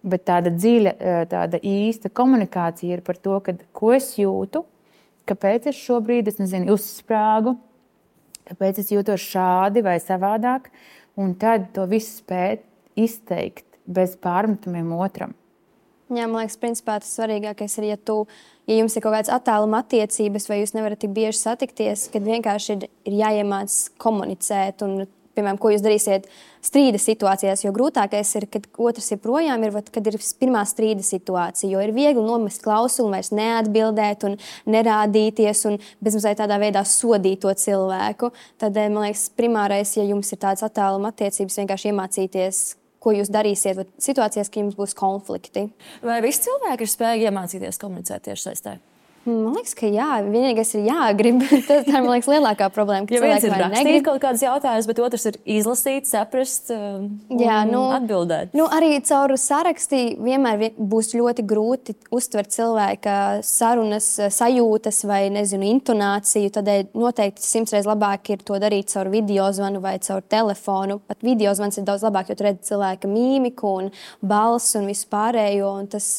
Bet tāda dziļa, tāda īsta komunikācija ir par to, ko es jūtu, kāpēc es šobrīd, uzsprāgu, kāpēc es jūtos šādi vai savādāk, un tad to visu spēt izteikt bez pārmetumiem otram. Jā, man liekas, principā tas svarīgākais ir, ja jums ir kaut kādas attāluma attiecības vai jūs nevarat tik bieži satikties, kad vienkārši ir jāiemāc komunicēt un, piemēram, ko jūs darīsiet strīda situācijās, jo grūtākais ir, kad otrs ir projām, kad ir pirmā strīda situācija, jo ir viegli nomest klausuli, vairs neatbildēt un nerādīties un bezmazliet tādā veidā sodīt to cilvēku. Tad, man liekas, primārais, ja jums ir tādas attāluma attiecības, vienkārši iemācīties, ko jūs darīsiet situācijās, ka jums būs konflikti. Vai visi cilvēki ir spējīgi iemācīties komunicēt tieši saistē? Man liekas, ka jā, vienīgais ir jāgrib. Tas ir, man liekas, lielākā problēma, ka cilvēki vai negrib. Rakstīt kaut kādus jautājumus, bet otrs ir izlasīt, saprast atbildēt. Arī caur sarakstī vienmēr būs ļoti grūti uztvert cilvēka sarunas, sajūtas vai, intonāciju. Tādēļ noteikti 100 reizes labāk ir to darīt caur videozvanu vai caur telefonu. Pat videozvans ir daudz labāk, jo tu redzi cilvēka mīmiku un balsi un visu pārējo. Un tas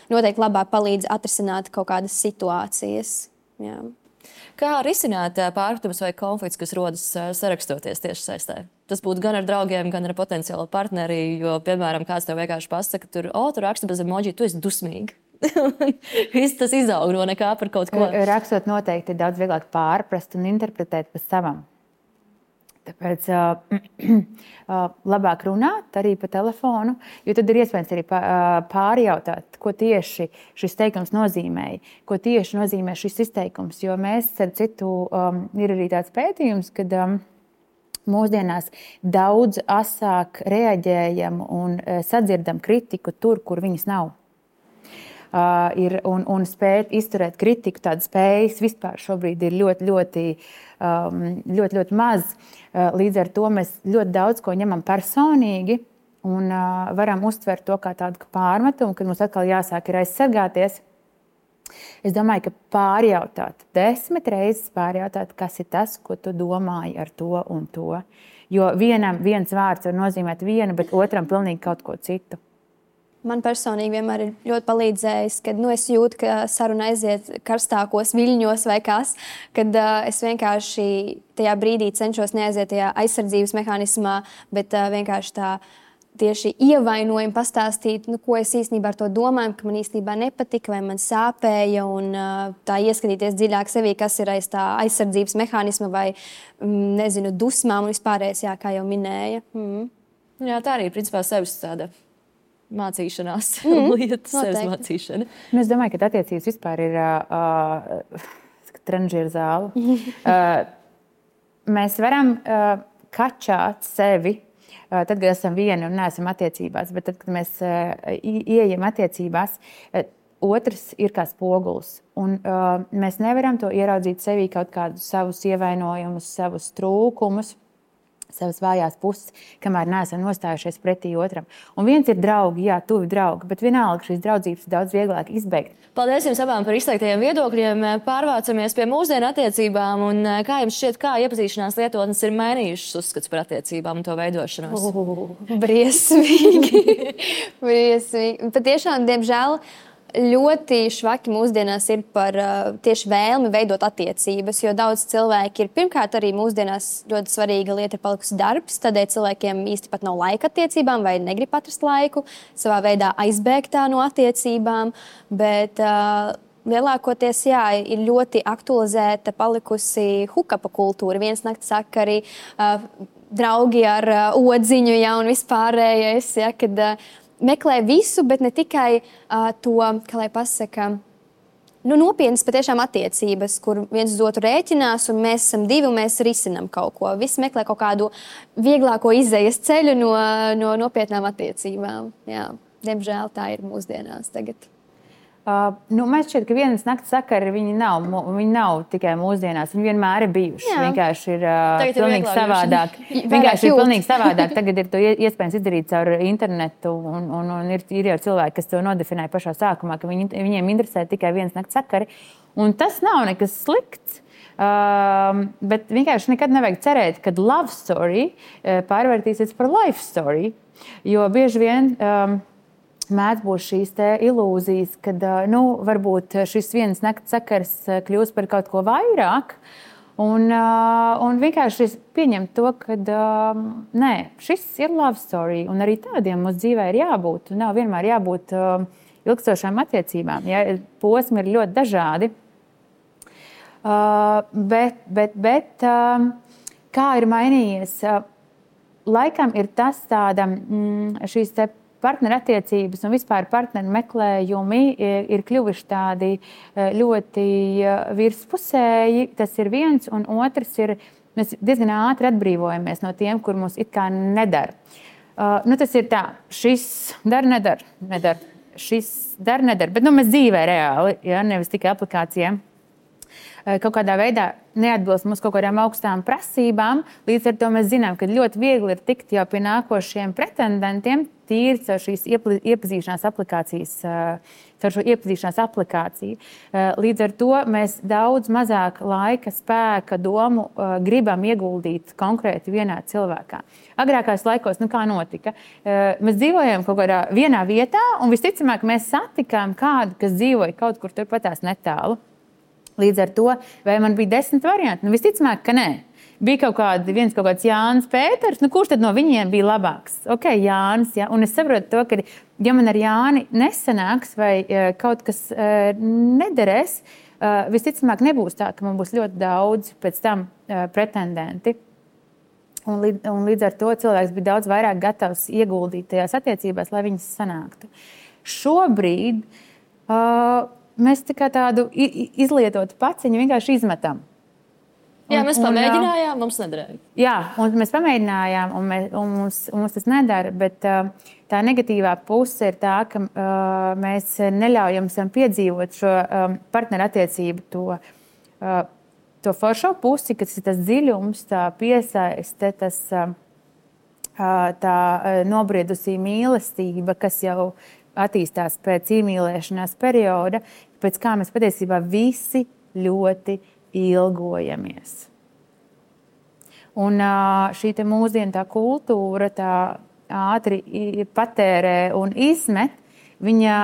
noteikti labāk palīdz atrisināt kaut kādas situācijas. Jā. Kā risināt pārpratumus vai konflikts, kas rodas sarakstoties tieši saistē? Tas būtu gan ar draugiem, gan ar potenciālo partneri, jo, piemēram, kāds tev vienkārši pasaka, tu raksti bez emoji, tu esi dusmīgi. Viss tas izaug no nekā par kaut ko. Rakstot noteikti ir daudz vieglāk pārprast un interpretēt pa savam. Tāpēc labāk runāt arī pa telefonu, jo tad ir iespējams arī pārjautāt, ko tieši šis teikums nozīmēja, ko tieši nozīmē šis izteikums. Jo mēs, ar citu, ir arī tāds pētījums, kad mūsdienās daudz asāk reaģējam un sadzirdam kritiku tur, kur viņas nav. Un spēt izturēt kritiku, tādas spējas vispār šobrīd ir ļoti maz. Līdz ar to mēs ļoti daudz ko ņemam personīgi un varam uztvert to kā tādu pārmetumu, kad mums atkal jāsāk ir aizsargāties. Es domāju, ka pārjautāt, 10 reizes pārjautāt, kas ir tas, ko tu domāji ar to un to. Jo viens vārds var nozīmēt vienu, bet otram pilnīgi kaut ko citu. Man personīgi vienmēr ir ļoti palīdzējis, kad es jūtu, ka saruna aiziet karstākos viļņos vai kas, kad es vienkārši tajā brīdī cenšos neaiziet tajā aizsardzības mehānismā, bet vienkārši tā tieši ievainojumi pastāstīt, ko es īstenībā ar to domāju, ka man īstenībā nepatika vai man sāpēja, un tā ieskatīties dziļāk sevī, kas ir aiz tā aizsardzības mehānisma vai, nezinu, dusmām un vispārējais, kā jau minēja. Jā, tā arī, principā, sevis tāda mācīšanās lieta, sevis mācīšana. Es domāju, ka attiecības vispār ir tranžieru zāle. Mēs varam kačāt sevi, tad, kad esam vieni un neesam attiecībās, bet tad, kad mēs ieejam attiecībās, otrs ir kā spogulis. Un mēs nevaram to ieraudzīt sevī kaut kādus savus ievainojumus, savus trūkumus, savas vājās puses, kamēr neesam nostājušies pretī otram. Un viens ir draugi, jā, tuvi draugi, bet vienalga šīs draudzības ir daudz vieglāk izbeigt. Paldies jums abām par izteiktajiem viedokļiem. Pārvācamies pie mūsdienu attiecībām. Un kā jums šķiet, kā iepazīšanās lietotnes ir mainījušas uzskats par attiecībām un to veidošanos? Briesmīgi. Briesmīgi. Patiešām, diemžēl, ļoti švaki mūsdienās ir par tieši vēlmi veidot attiecības, jo daudz cilvēki ir, pirmkārt, arī mūsdienās ļoti svarīga lieta ir palikusi darbs, tādēļ cilvēkiem īsti pat nav laika attiecībām vai negrib atrast laiku, savā veidā aizbēgt no attiecībām, bet lielākoties, jā, ir ļoti aktualizēta palikusi hukapa kultūra, viens nakts sakari, draugi ar odziņu, jā, un vispārējais, jā, kad meklē visu, bet ne tikai to, kā lai pasaka, nopietnas patiešām attiecības, kur viens uz otru rēķinās, un mēs esam divi, un mēs risinam kaut ko. Visi meklē kaut kādu vieglāko izējas ceļu no nopietnām attiecībām. Jā, diemžēl tā ir mūsdienās tagad. Man šķiet, ka vienas nakts sakari viņi nav tikai mūsdienās, viņi vienmēr ir bijuši. Vienkārši ir pilnīgi savādāk. Vienkārši ir pilnīgi savādāk. Tagad ir to iespējams izdarīt caur internetu, un ir jau cilvēki, kas to nodefinē pašā sākumā, ka viņiem interesē tikai vienas nakts sakari. Un tas nav nekas slikts. Bet vienkārši nekad nevajag cerēt, ka love story pārvērtīsies par life story, jo bieži vien mēdz būt šīs ilūzijas, kad varbūt šis vienas nakts sakars kļūs par kaut ko vairāk. Un vienkārši pieņemt to, ka nē, šis ir love story. Un arī tādiem mūsu dzīvē ir jābūt. Nav vienmēr jābūt ilgstošām attiecībām. Ja? Posmi ir ļoti dažādi. Bet kā ir mainījies? Laikam ir tas tāda šīs partnerattiecības un vispār partneru meklējumi ir kļuvuši tādi ļoti virspusēji. Tas ir viens, un otrs ir, mēs diezgan ātri atbrīvojamies no tiem, kur mums it kā nedara. Tas ir tā, šis nedara, šis nedara, bet mēs dzīvē reāli, ja, nevis tikai aplikācijām. Kaut kādā veidā neatbilst mums kaut kādām augstām prasībām. Līdz ar to mēs zinām, ka ļoti viegli ir tikt jau pie nākošiem pretendentiem tīri caur šīs iepazīšanās aplikācijas, caur šo iepazīšanās aplikāciju. Līdz ar to mēs daudz mazāk laika, spēka, domu gribam ieguldīt konkrēti vienā cilvēkā. Agrākās laikos, kā notika? Mēs dzīvojam kaut kādā vienā vietā, un visticamāk mēs satikām kādu, kas dzīvoja kaut kur turpatās netālu. Līdz ar to, vai man bija 10 varianti? Visticamāk, ka nē. Bija viens kaut kāds Jānis Pēters, kurš tad no viņiem bija labāks? Ok, Jānis, ja? Un es saprotu to, ka ja man ar Jāni nesanāks vai kaut kas nederēs, visticamāk nebūs tā, ka man būs ļoti daudz pēc tam pretendenti. Un līdz ar to cilvēks bija daudz vairāk gatavs ieguldīt tajās attiecībās, lai viņas sanāktu. Šobrīd mēs tādu izlietotu paciņu vienkārši izmetam. Jā, mēs pamēģinājām, mums nedarēja. Jā, un mēs pamēģinājām, un mums tas nedara, bet tā negatīvā puse ir tā, ka mēs neļaujam sev piedzīvot šo partnerattiecību, to foršo pusi, kas ir tas dziļums, tā piesaiste, tā nobriedusī mīlestība, kas jau attīstās pēc iemīlēšanās perioda, pēc kā mēs patiesībā visi ļoti ilgojamies. Un šī mūsdienu tā kultūra tā ātri patērē un izmet, viņa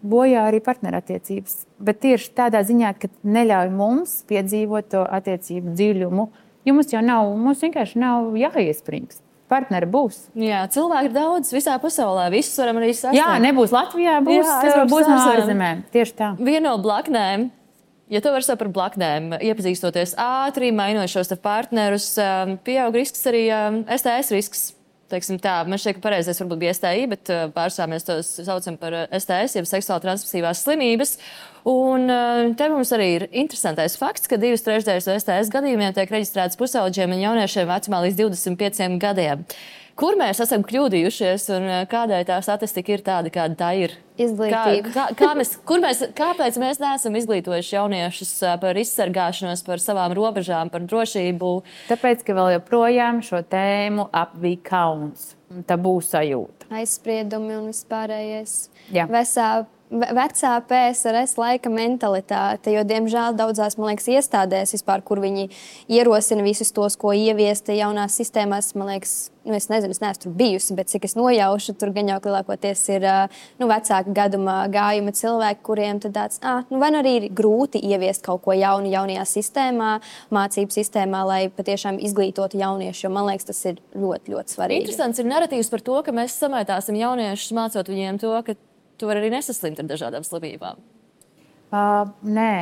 bojā arī partnerattiecības. Bet tieši tādā ziņā, ka neļauj mums piedzīvot to attiecību dziļumu, jo mums vienkārši nav jāiesprings. partneri būs. Jā, cilvēki ir daudz visā pasaulē, visus varam arī sasniegt. Jā, nebūs Latvijā, būs no ārzemēm. Tieši tā. Viena no blaknēm, ja to var saukt par blaknēm, iepazīstoties ātri, mainot šos partnerus, pieaug risks arī STS risks. Teiksim tā, man šķiet, ka pareizais varbūt bija STI, bet pārsvarā mēs tos saucam par STS, jeb seksuāli transmisīvās slimības. Un te mums arī ir interesantais fakts, ka 2/3 no STS gadījumiem tiek reģistrētas pusaudžiem un jauniešiem vecumā līdz 25 gadiem. Kur mēs esam kļūdījušies un kādēļ tā statistika ir tāda, kāda tā ir? Izglītība. Kāpēc mēs neesam izglītojuši jauniešus par izsargāšanos, par savām robežām, par drošību? Tāpēc, ka vēl joprojām šo tēmu apvij kauns. Tabū sajūta. Aizspriedumi un vispārējais. Jā. Vecā PSRS laika mentalitāte, jo, diemžēl, daudzās, man liekas, iestādēs vispār, kur viņi ierosina visus tos, ko ieviesta jaunās sistēmās, man liekas, es nezinu, es neesmu tur bijusi, bet cik es nojaušu, tur gan jau lielākoties ir vecāka gaduma gājuma cilvēki, kuriem tad tāds, vai nu arī ir grūti ieviest kaut ko jaunu jaunajā sistēmā, mācību sistēmā, lai patiešām izglītotu jauniešu, jo man liekas, tas ir ļoti, ļoti svarīgi. Interesants ir narratīvs par to, ka mēs samaitāsim jauniešus, mācot viņiem to, ka tu vari arī nesaslimt ar dažādām slimībām. Nē.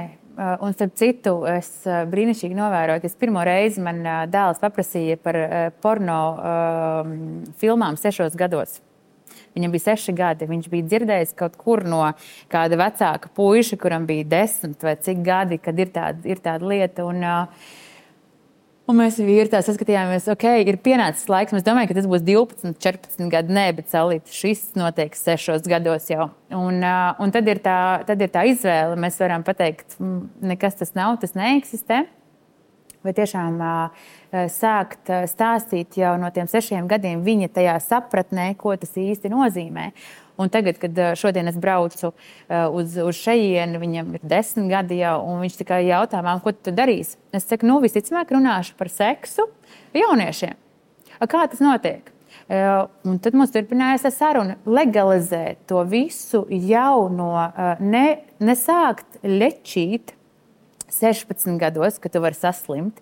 Un starp citu, es brīnišķīgi novēroju, ka pirmo reizi man dēls paprasīja par porno filmām 6 gados. Viņam bija 6 gadi. Viņš bija dzirdējis kaut kur no kāda vecāka puiša, kuram bija 10 vai cik gadi, kad ir tāda lieta. Un mēs vīri tā saskatījāmies, ir pienācis laiks. Mēs domājam, ka tas būs 12, 14 gadi. Nē, bet saulīt, šis notiek 6 gados jau. Un tad ir tā izvēle. Mēs varam pateikt, nekas tas nav, tas neeksistē. Vai tiešām sākt stāstīt jau no tiem 6 gadiem viņa tajā sapratnē, ko tas īsti nozīmē. Un tagad, kad šodien es braucu uz šejieni, viņam ir 10 gadi jau, un viņš tikai jautā man, ko tu darīsi? Es saku, visticamāk runāšu par seksu jauniešiem. Kā tas notiek? Un tad mums turpinājās saruna legalizēt to visu jau no nesākt lečīt 16 gados, kad tu vari saslimt,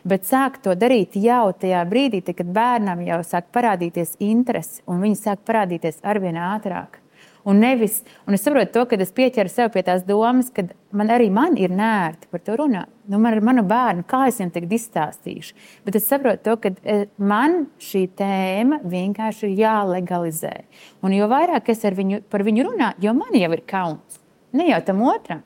bet sāk to darīt jau tajā brīdī, kad bērnam jau sāk parādīties interesi, un viņi sāk parādīties arvien ātrāk. Un es saprotu to, kad es pieķeru sev pie tās domas, ka man ir nērti par to runāt. Man ar manu bērnu, kā es viņam tagad izstāstīšu. Bet es saprotu to, ka man šī tēma vienkārši ir jālegalizē. Un jo vairāk es par viņu runāju, jo man jau ir kauns. Ne jau tam otram.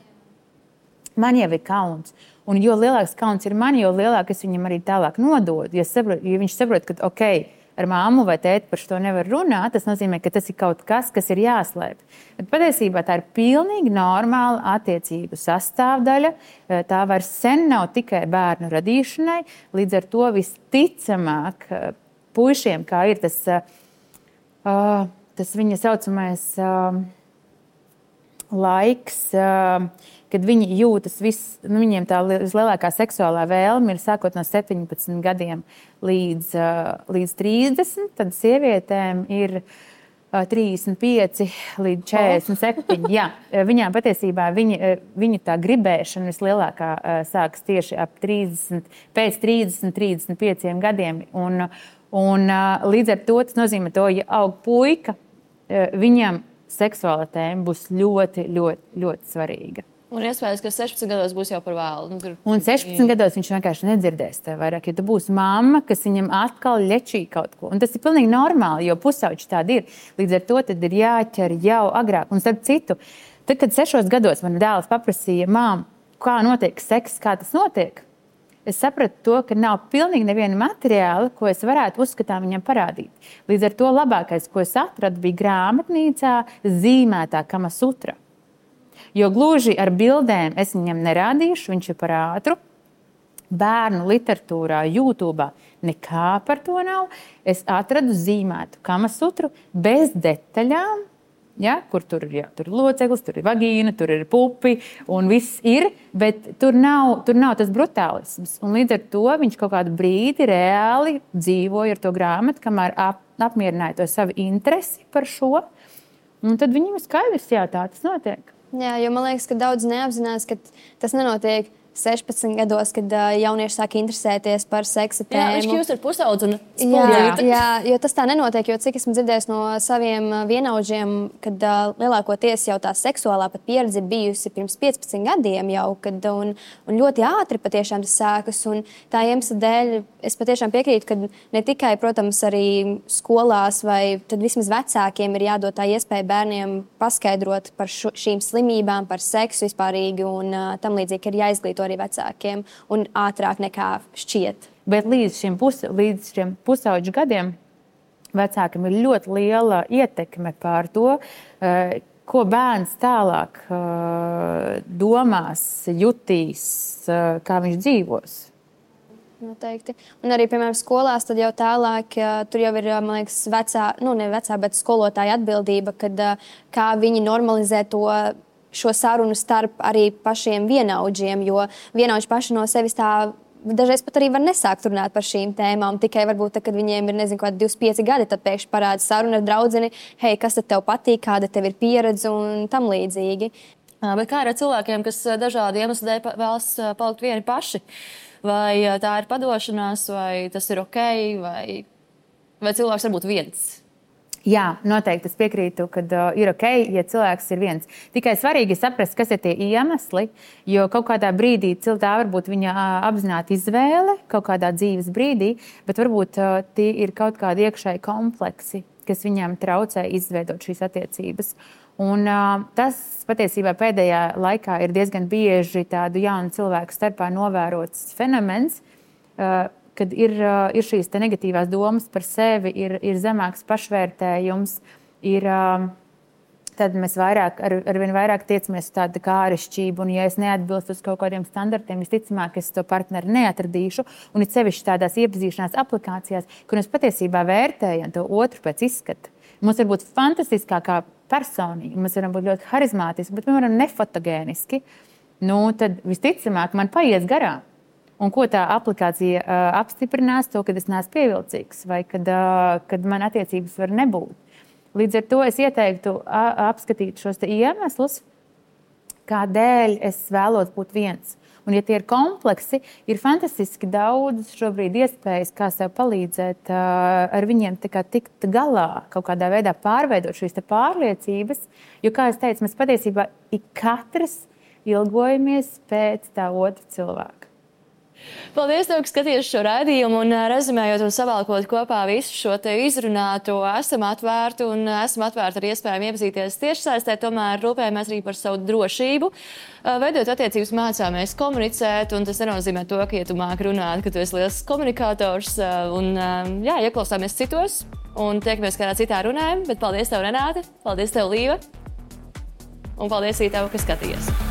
Man jau ir kauns. Un jo lielāks kauns ir man, jo lielāk es viņam arī tālāk nododu. Ja viņš saprot, ka ar māmu vai tēti par šo nevar runāt, tas nozīmē, ka tas ir kaut kas, kas ir jāslēp. Bet patiesībā tā ir pilnīgi normāla attiecību sastāvdaļa. Tā vairs sen nav tikai bērnu radīšanai. Līdz ar to visticamāk puišiem, kā ir tas viņa saucamais laiks, kad viņi jūtas viņiem tā vislielākā seksuālā vēlme ir sākot no 17 gadiem līdz 30, tad sievietēm ir 35 līdz 47. Jā, viņām patiesībā viņa tā gribēšana vislielākā sākas tieši pēc 30, 35 gadiem. Un līdz ar to tas nozīmē to, ja aug puika, viņam seksuāla tēma būs ļoti, ļoti, ļoti svarīga. Un iespējams, ka 16 gados būs jau par vēlu. Un 16 gados viņš vienkārši nedzirdēs tev vairāk, jo tu būsi mamma, kas viņam atkal ļečī kaut ko. Un tas ir pilnīgi normāli, jo pusauģi tādi ir. Līdz ar to tad ir jāķer jau agrāk. Un starp citu, tad, kad 6 gados man dēls paprasīja, mām, kā notiek seks, kā tas notiek, es sapratu to, ka nav pilnīgi neviena materiāla, ko es varētu uzskatām viņam parādīt. Līdz ar to labākais, ko es atradu, bija grāmatnīcā zīmētā Kama Sutra. Jo gluži ar bildēm es viņam nerādīšu, viņš ir par ātru. Bērnu literatūrā, YouTube nekā par to nav. Es atradu zīmētu Kama Sutru bez detaļām, ja, kur tur ir loceklis, tur ir vagīna, tur ir pupi un viss ir, bet tur nav tas brutālisms. Un līdz ar to viņš kaut kādu brīdi reāli dzīvoja ar to grāmatu, kamēr apmierināja to savu interesi par šo. Un tad viņam ir skaidrs, jā, tā tas notiek. Jā, jo man liekas, ka daudz neapzinās, ka tas nenotiek 16 gados, kad jaunieši sāk interesēties par seksa tēmu. Viņš kļūst ar pusaudzi un jā, jo tas tā nenotiek, jo cik esmu dzirdējis no saviem vienaudžiem, kad lielākoties jau tā seksuālā pat pieredze ir bijusi pirms 15 gadiem jau, un ļoti ātri patiešām tas sākas. Un tā iemesla dēļ es patiešām piekrītu, ka ne tikai, protams, arī skolās vai tad vismaz vecākiem ir jādod tā iespēja bērniem paskaidrot par šīm slimībām, par seksu vispārīgi un tam līdzīgi, ka ir jāizglīto arī vecākiem un ātrāk nekā šķiet. Bet līdz šiem pusauģu gadiem vecākiem ir ļoti liela ietekme pār to, ko bērns tālāk domās, jutīs, kā viņš dzīvos. Noteikti. Un arī, piemēram, skolās tad jau tālāk, tur jau ir, man liekas, bet skolotāja atbildība, kad kā viņi normalizē šo sarunu starp arī pašiem vienaudžiem, jo vienaudži paši no sevis tā dažreiz pat arī var nesākt runāt par šīm tēmām, tikai varbūt, kad viņiem ir, 25 gadi, tad pēkšņi parāda saruna ar draudzeni, hei, kas tad tev patīk, kāda tev ir pieredze un tam līdzīgi. Bet kā ar cilvēkiem, kas dažādi iemesli dēļ vēlas palikt vieni paši? Vai tā ir padošanās, vai tas ir ok, vai cilvēks var būt viens? Jā, noteikti es piekrītu, ka ir ok, ja cilvēks ir viens. Tikai svarīgi saprast, kas ir tie iemesli, jo kaut kādā brīdī tā var būt viņa apzināta izvēle, kaut kādā dzīves brīdī, bet varbūt tie ir kaut kādi iekšēji kompleksi, kas viņam traucē izveidot šīs attiecības. Un tas patiesībā pēdējā laikā ir diezgan bieži tādu jaunu cilvēku starpā novērots fenomens, kad ir šīs negatīvās domas par sevi, ir zemāks pašvērtējums, tad mēs arvien vairāk tiecamies uz tādu kā āršķirību, un ja es neatbilstu uz kaut kādiem standartiem, visticamāk, es to partneri neatradīšu, un it sevišķi tādās iepazīšanās aplikācijās, kur mēs patiesībā vērtējam to otru pēc izskata. Mums var būt fantastiskākā personība, mēs varam būt ļoti harizmātiski, bet mēs varam nefotogēniski, tad visticamāk man paies garām. Un ko tā aplikācija apstiprinās, to, kad es neesmu pievilcīgs vai kad man attiecības var nebūt. Līdz ar to es ieteiktu apskatīt šos iemeslus, kādēļ es vēlos būt viens. Un ja tie ir kompleksi, ir fantastiski daudz šobrīd iespējas, kā sev palīdzēt ar viņiem tikt galā, kaut kādā veidā pārveidot šīs pārliecības, jo, kā es teicu, mēs patiesībā katrs ilgojamies pēc tā otra cilvēka. Paldies, tev, ka skaties šo raidījumu un rezumējot un savalkot kopā visu šo te izrunāto, esam atvērti ar iespējām iepazīties tiešsaistē, tomēr rūpējamies arī par savu drošību. Veidot attiecības mācāmies komunicēt, un tas nenozīmē to, ka, ja tu māki runāt, ka tu esi liels komunikators, un ieklausāmies citos, un tiekamies kādā citā runājumā, bet paldies tev, Renāte, paldies tev, Līva, un paldies arī tev, ka skatījies.